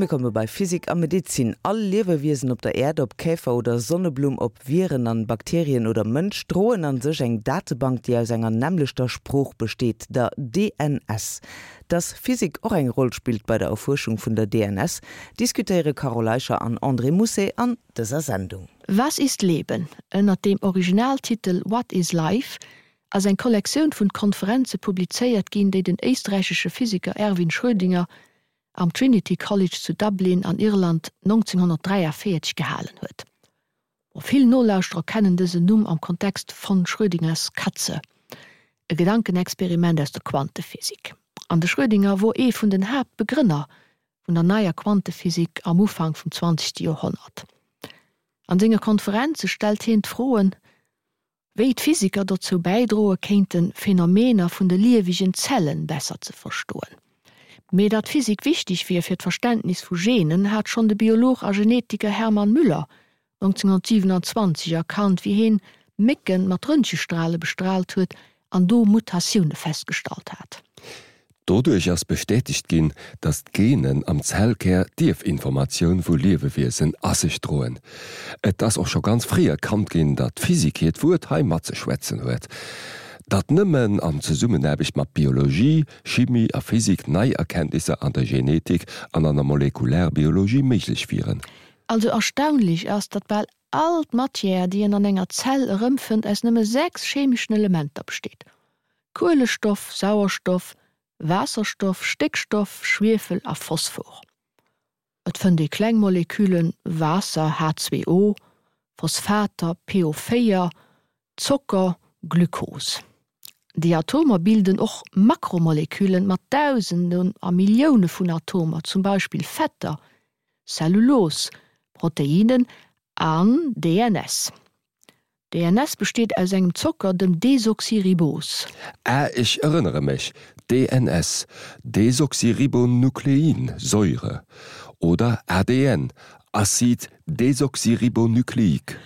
Mir komme bei Physik a Medezin. All Liewewiesen op der Äerd, ob Käfer oder Sonneblumm, ob Viren an Bakterien oder Mënsch, droen an sech eng Datebank, déi aus enger nämmlechter Sprooch besteet, der DNS. Dass Physik och eng Roll spillt bei der Erfuerschung vun der DNS, diskutéiere Carole Eicher an André Mousset an dëser Sendung. Was ist Leben? ënner dem Originaltitel What is Life? ass eng Kollektioun vun Konferenze publizéiert ginn, déi den éisträichesche Physiker Erwin Schrödinger am Trinity College zu Dublin an Irland 1943 gehalen huet. Vill Nolauschterer kennen dësen Numm am Kontext von Schrödingers Katze, e Gedankenexperiment aus der Quantephysik. An de Schrödinger wor ee vun den Haaptbegrënner vun der neier Quantephysik am Ufank vum zwanzegste Joerhonnert. An senge Konferenze stellt hien d'Froen, Wéi d'Physiker dozou bäidroe kéinten, Phänomener vun de liewegen Zellen besser ze verstoen. Mee datt Physik wichteg wier fir d'Verständnis vu Genen, hat schonn de Biolog a Genetiker Hermann Müller 1927 erkannt, wéi heen Mécken mat Röntgestrale bestraalt huet an do Mutatioune festgestallt hat. Doduerch ass bestätegt ginn, datt d'Genen am Zellkär d'Ierfinformatioun vu Liewewiesen a sech droen. Et ass och scho ganz fréi erkannt ginn, datt d'Physik hiert Wuert hei matzeschwätzen huet. Datt nëmmen an Zesummenaarbecht mat Biologie, Chimie a Physik nei Erkenntnisser an der Genetik an an der Molekularbiologie méiglech wieren. Also erstaunlech ass, datt bal all d'Matière, déi een an enger Zell erëmfënnt, aus nëmme 6 chemeschen Elementer besteet, Kuelestoff, Sauerstoff, Waasserstoff, Stéckstoff, Schwiefel a Phosphor. Et fënnt ee kleng Moleküllen, Waasser, H2O, Phosphater, PO4, Zocker, Glukos. Déi Atomer bilden och Makromoleküllen mat Dausenden a Millioune vun Atomer, zum Beispill Fetter, Zellulos, Proteinen an DNS. DNS besteet aus engem Zocker, dem Desoxyribos. Ah, ech erënnere mech, DNS, Desoxyribonukleinsäure, oder ADN, Acide désoxyribonucléique.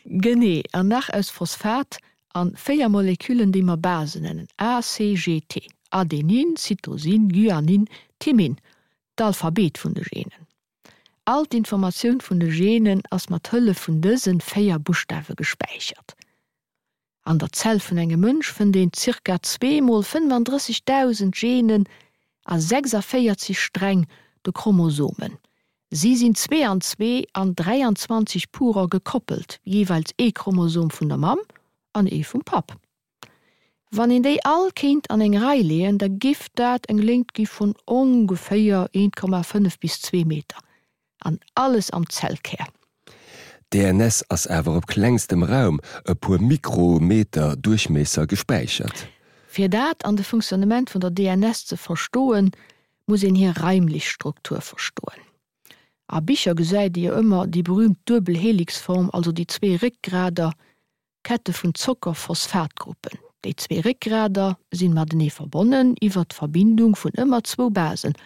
Genee, an nach aus Phosphat an 4 Moleküllen, déi mer Basen nennen, A, C, G, T, Adenin, Cytosin, Guanin, Thymin, d'Alphabet vun de Genen. All d'Informatioun vun de Genen ass mat Hëllef vun dësen 4 Buschtawe gespäichert. An der Zell vun engem Mënsch fënnt een zirka zwee mol 35.000 Genen a 46 Sträng, de Chromosomen. Si sinn zwee an zwee an 23 Purer gekoppelt, jeeweils ee Chromosom vun der Mamm an ee vum Papp. Wann een déi all kéint an eng Rei leeën, da giff dat eng Léngt gi vun ongeféier 1,5 bis 2 Meter. An alles am Zellkär. DNS ass awer op klengstem Raum, e puer Mikrometer Duerchmiesser, gespäichert. Fir dat an de Funktionnement vun der DNS ze verstoen, muss een hir raimlech Struktur verstoen. A Bicher gesäit ee jo ëmmer déi berühmt Duebelhelixform, also déi zwee Réckgrader, Kette vun Zocker-Phosphatgruppen. Déi zwee Réckgrader sinn matenee verbonnen iwwer d'Verbindung vun ëmmer zwou Basen,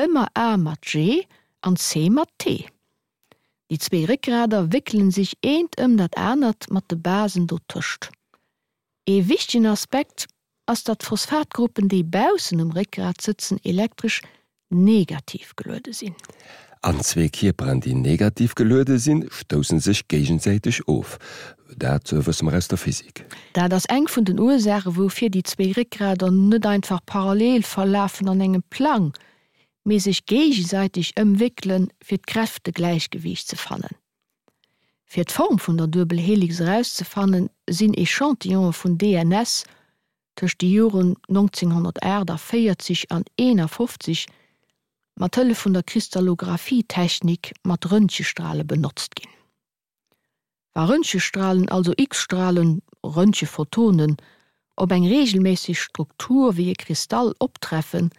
ëmmer A mat G an C mat T. Déi zwee Réckgrader wéckelen sech eent ëm dat anert mat de Basen dotëscht. Ee wichtegen Aspekt ass datt d'Phosphatgruppen déi baussen um Réckgrat sëtzen elektresch negativ geluede sinn. An zwee Kierperen déi negativ geluede sinn, stousse sech géigesäiteg of. Dat wësse mer aus der Physik. Dat ass eng vun den Ursaache woufir déi zwee Réckgrader net einfach parallel verlafen an engem Plang, mee sech géigesäiteg ëmwéckelen fir d'Kräftegläichgewiicht ze fannen. Fir d'Form vun der Duebelhelix erauszefannen, sinn Echantillonë vun DNS tëscht de Joren 1948 an 51 mat Hëllef vun der Kristallographie-Technik mat Röntgestrale benotzt ginn. Wa Röntgestralen, also X-Stralen, Röntgephotonen, op eng reegelméisseg Struktur wéi e Kristall optreffen,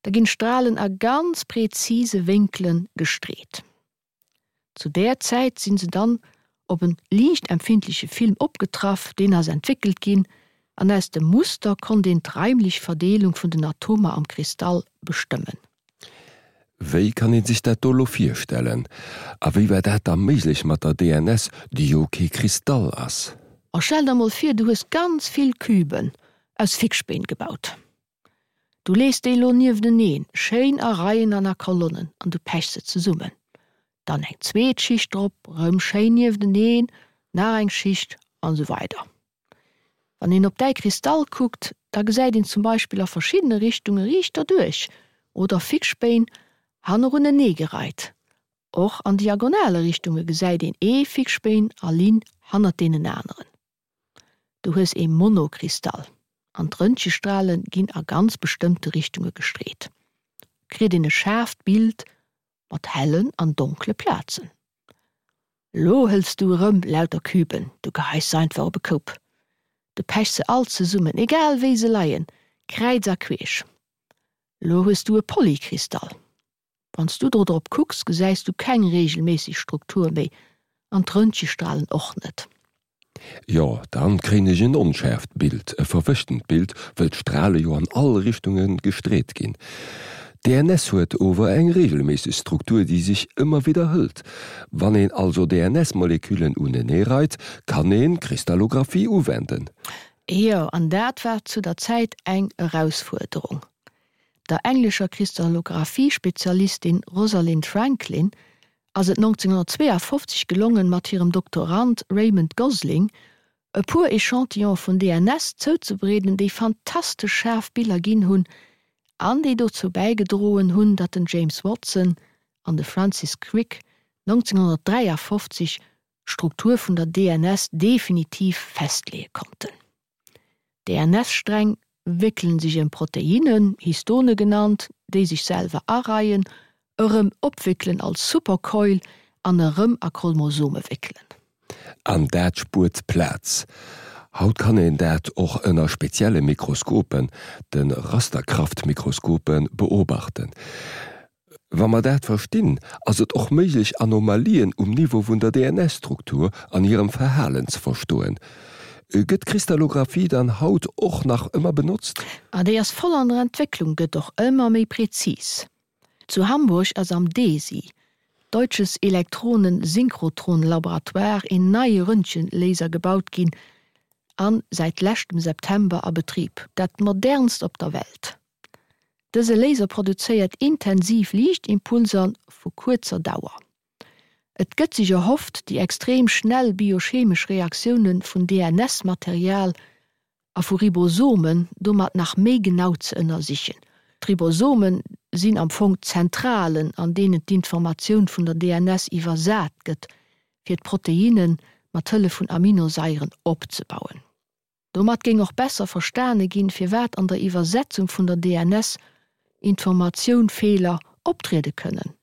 da ginn d'Stralen a ganz prezise Wénkele gestreet. Zu där Zäit sinn se dann op en liichtempfindleche Film opgetraff, deen ass entwéckelt ginn, an aus dem Muster konnt een d'raimlech Verdeelung vun den Atomer am Kristall bestëmmen. Wéi kann een sech dat do lo virstellen? A wéi war dat da méiglech mat der DNS, déi jo kee Kristall ass? A stell der mol vir, du hues ganz vill Küben aus Fickspeen gebaut. Du lees déi lo niefteneen, schéin a Reien an a Kolonnen an du pechs se zesummen. Dann eng zweet Schicht drop, rëm schéin niefteneen, nach eng Schicht an esou weider. Wann een op däi Kristall kuckt, da gesäit een zum Beispill a verschiddene Richtunge riicht derduerch oder Fixspéin hanneruneneegereit. Och an diagonale Richtunge gesäit een ee Fixspéin a Linn hannert deenen aneren. Du hues ee Monokristall an d'Röntgestrale ginn a ganz bestëmmte Richtunge gestreet. Kritt een e schaarft Bild mat hellen an donkle Plazen. Lo hëls du erëm lauter Küben, du geheis se einfach op e Koup. Du pechs se all zesummen, egal wéi se leien, kräiz a queesch. Lo hues du e Polykristall. Wann s du do drop kucks, gesäis du keng reegelméisseg Struktur méi an d'Röntgestralen och net. Jo, dann kréien ech en onschäerft Bild, e verwëschtent Bild, wëll d'Strale jo an all Richtunge gestreet ginn. DNS huet ower eng reegelméisseg Struktur, déi sech ëmmer widderhëlt. Wann een also DNS-Moleküllen uneneereit, kann een Kristallographie uwenden. Jo, an dat war zu der Zäit eng Erausfuerderung. Der englescher Kristallographie-Spezialistin Rosalind Franklin ass et 1952 gelongen, mat hirem Doktorand Raymond Gosling e puer Echantillone vun DNS zouzebereeden, déi fantastesch schaarf Biller ginn hunn an déi dozou bäigedroen hunn, datt den James Watson an de Francis Crick 1953 d'Struktur vun der DNS definitiv festleeë konnten. DNS-Sträng wéckelen sech ëm Proteinnen, Histone genannt, déi sech selwer areien, erëm opwéckelen als Supercoil an erëm a Chromosome wéckelen. An dat spuert Plaz. Haut kann een dat och ënner spezielle Mikroskopen, de Rasterkraftmikroskopen, beobachten. Wa mer dat verstinn, ass et och méiglech Anomalien um Niveau vun der DNS-Struktur an hirem Verhalen ze verstoen. Gëtt d'Kristallographie dann haut och nach ëmmer benotzt? A déi ass voll an der Entwécklung, gëtt och ëmmer méi präzis. Zu Hamburg ass am DESY, Deutsches Elektronen-Synchrotron-Laboratoire, een neie Röntgenlaser gebaut ginn an säit leschtem September a Betrib, dat modernst op der Welt. Dëse Laser produzéiert intensiv Liichtimpulser vu kuerzer Dauer. Et gëtt sech erhofft, déi extrem schnell biochemesch Reaktioune vun DNS-Material a vu Ribosomen domat nach méi genau ze ënnersichen. D'Ribosome sinn am Fong d'Zentralen, an deenen d'Informatioun vun der DNS iwwersat gëtt, fir d'Proteinne mat Hëllef vun Aminosaieren opzebauen. Domat géing och besser verstane ginn, firwat an der Iwwersetzung vun der DNS Informatioun Feeler optriede kënnen,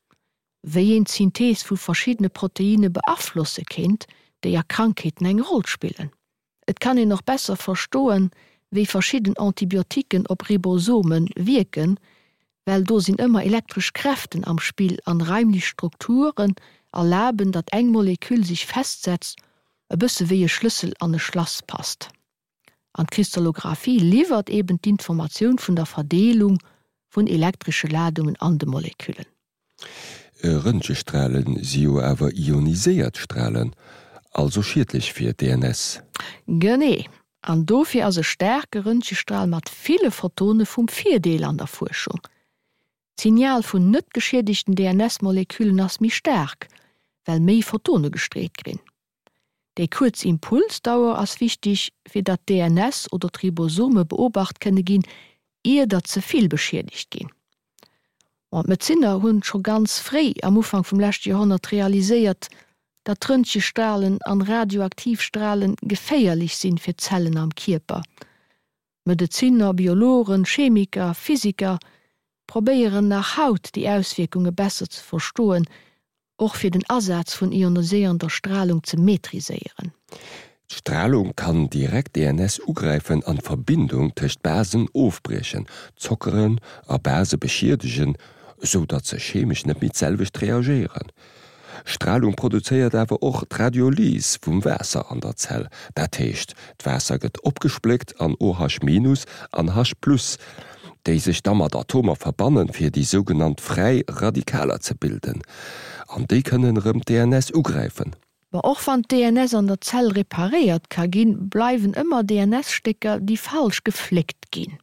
wéi een d'Synthees vu verschiddene Proteinne beaflosse kéint, déi a Krankheeten eng Roll spillen. Et kann een och besser verstoen, wéi verschidden Antibioticken op Ribosome wierken, well do sinn ëmmer elektresch Kräften am Spill an raimlech Strukturen erlaben, datt eng Moleküll sech festsetzt, e bësse wéi e Schlëssel an e Schlass passt. An d'Kristallographie liwwert eben d'Informatioun vun der Verdeelung vun elektresche Ladungen an de Moleküllen. Röntgestralen si jo awer ioniséiert Stralen, also schiedlech fir d'DNS. Genee, an dofir ass e staarke Röntgestral mat ville Photone vum Virdeel an der Fuerschung. D'Signal vun net geschiedegten DNS-Moleküllen ass méi staark, well méi Photone gestreet grinn. Déi kuerz Impulsdauer ass wichteg, fir datt d'DNS oder d'Ribosome beobacht kënne ginn, ier datt ze vill beschiedegt ginn. Bon, d'Medezinner hunn scho ganz fréi am Ufank vum leschte Joerhonnert realiséiert, datt Röntgestralen an radioaktiv Stralen geféierlech sinn fir d'Zellen am Kierper. Medezinner, Biologen, Chemiker, Physiker probéieren nach haut déi Auswierkunge besser ze verstoen, och fir den Asaz vun ioniséierender Stralung ze maîtriséieren. D'Stralung kann direkt DNS ugräifen an d'Verbindung tëscht Basen ofbriechen, Zockeren a Base beschiedegen, esou datt se chemesch net méi d'selwecht reagéieren. Stralung produzéiert awer och d'Radiolys vum Waasser an der Zell, dat heescht d'Waasser gëtt opgespléckt an OH- an H+, déi sech da mat Atomer verbannen, fir déi sougenannt fräi Radikaler ze bilden, an déi kënnen erëm d'DNS ugräifen. Ma och wann d'DNS an der Zell reparéiert ka ginn, bleiwen ëmmer DNS-Stécker, déi falsch gefléckt ginn.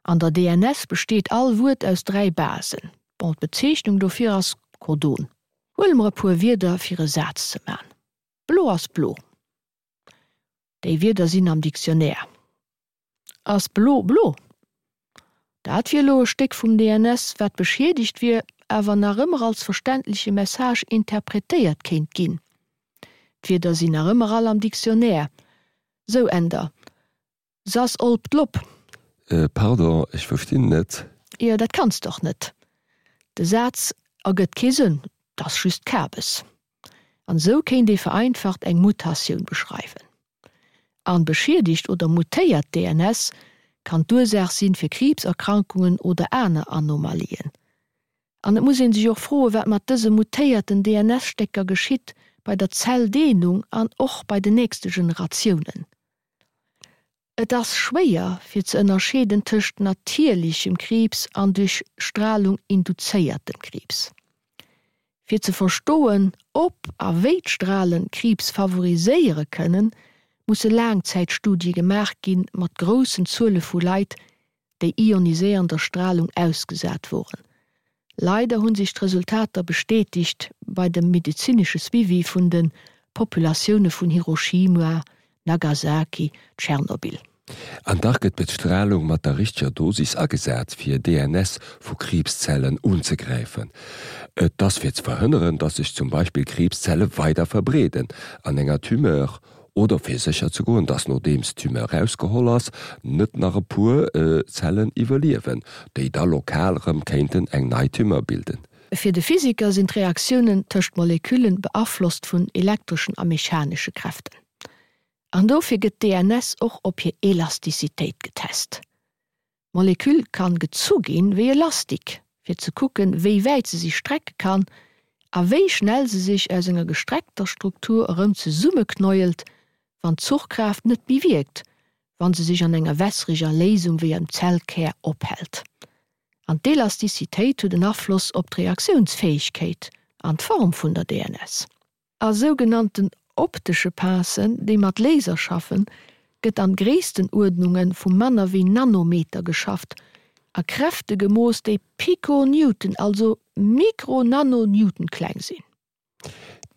An der DNS besteet all Wuert aus 3 Basen. Bon, d'Bezeechnung dofir ass Codon. Huele mer e puer Wierder fir e Saz ze man. Blo ass blo. Déi Wierder sinn am Dictionnaire. Ass blo blo? Dat wier elo e Stéck vum DNS, wat beschiedegt wier, awer nach ëmmer als verständleche Message interpretéiert kéint ginn. D'Wierder sinn nach ëmmer all am Dictionnaire. Sou, Änder. S'ass olp d'Lop. Pardon, ech verstinn net. Jo, dat kanns de och net. De Saz ergëtt kee Sënn, 't ass just Kabes. An esou kéint ee vereinfacht eng Mutatioun beschreiwen. An beschiedegt oder mutéiert DNS kann d'Ursaach sinn fir Kriibserkrankungen oder aner Anomalien. An et muss een sech och froen, wat mat dëse mutéierten DNS-Stécker geschitt bei der Zelldeelung an och bei den nächste Generatiounen. Et ass schwéier fir ze ënnerscheeden tëscht natierlichem Kriibs an duerch Stralung induzéiertem Kriibs. Fir ze verstoen, ob a wéi d'Stralen Kriibs favoriséiere kënnen, musse Laangzäitstudie gemaach gi mat groussen Zuele vu Leit, déi ioniséiernder Stralung ausgesat woren. Leider hunn sech d'Resultater bestätigt bei dem medezinesche Suivi vun de Populatioune vun Hiroshima, Nagasaki, Tschernobyl. An dach gëtt d'Bestralung mat der richteger Dosis agesat, fir DNS vu Kriibszellen unzegräifen. Et ass fir ze verhënneren, datt sech zum Beispill Kriibszelle weider verbreeden an enger Tumeur Oder fir sécher ze goen, dass nodeems d'Tumeur rausgeholl ass, net nach e puer Zellen iwwerliewen, déi da lokal rëm kéinten eng nei Tumeur bilden. Fir de Physiker sinn d'Reaktiounen tëscht Moleküllen beaflosst vun elektreschen a mechanesche Kräften. An dofir gëtt d'DNS och op hir Elastizitéit getest. D'Moleküll kann gezu ginn wéi e Lastik, fir ze kucken, wéi wäit se sich strecke kann a wéi schnell se sich aus enger gestreckter Struktur erëm zesummeknäuelt, wann d'Zuchkraaft net méi wierkt, wann se sich an enger wässreger Léisung wéi am Zellkär ophält. An d'Elastizitéit huet en Afloss op d'Reaktiounsfäegkeet an d'Form vun der DNS. A sougenannten optesche Pincen, déi mat Laser schaffen, gëtt an Gréisstenuerdnunge vu manner wéi Nanometer geschafft a Kräfte gemooss, déi Piconewton, also Mikro-Nano-Newton kleng sinn.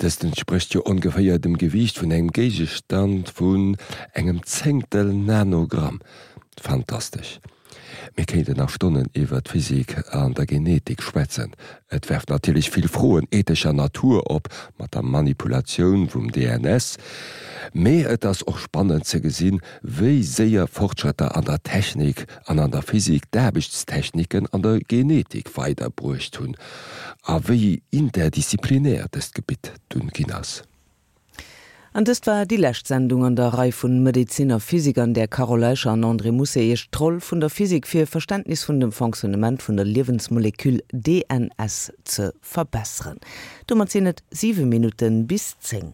Dëst entsprécht jo ongeféier dem Gewiicht vun engem Géigestand vun engem Zéngtel Nanogramm. Fantastesch! Mir kéinten nach Stonnen iwwer d'Physik an der Genetik schwätzen. Et werft natierlech vill Froen ethescher Natur op mat der Manipulatioun vum DNS. Mee et ass och spannend ze gesinn, wéi séier Fortschrëtter an der Technik an an der Physik d'Aarbechtstechniken an der Genetik weiderbruecht hunn a wéi interdisziplinär dëst Gebitt dunn ginn ass. An dëst war déi lescht Sendung an der Rei vun Medezin a Physik, an där Carole Eicher an André Mousset Iech d'Roll vun der Physik fir e Verständnis vun dem Fonctionnement vun der Liewensmoleküll DNS ze verbesseren. Domat sinn et 7 Minutten bis 10.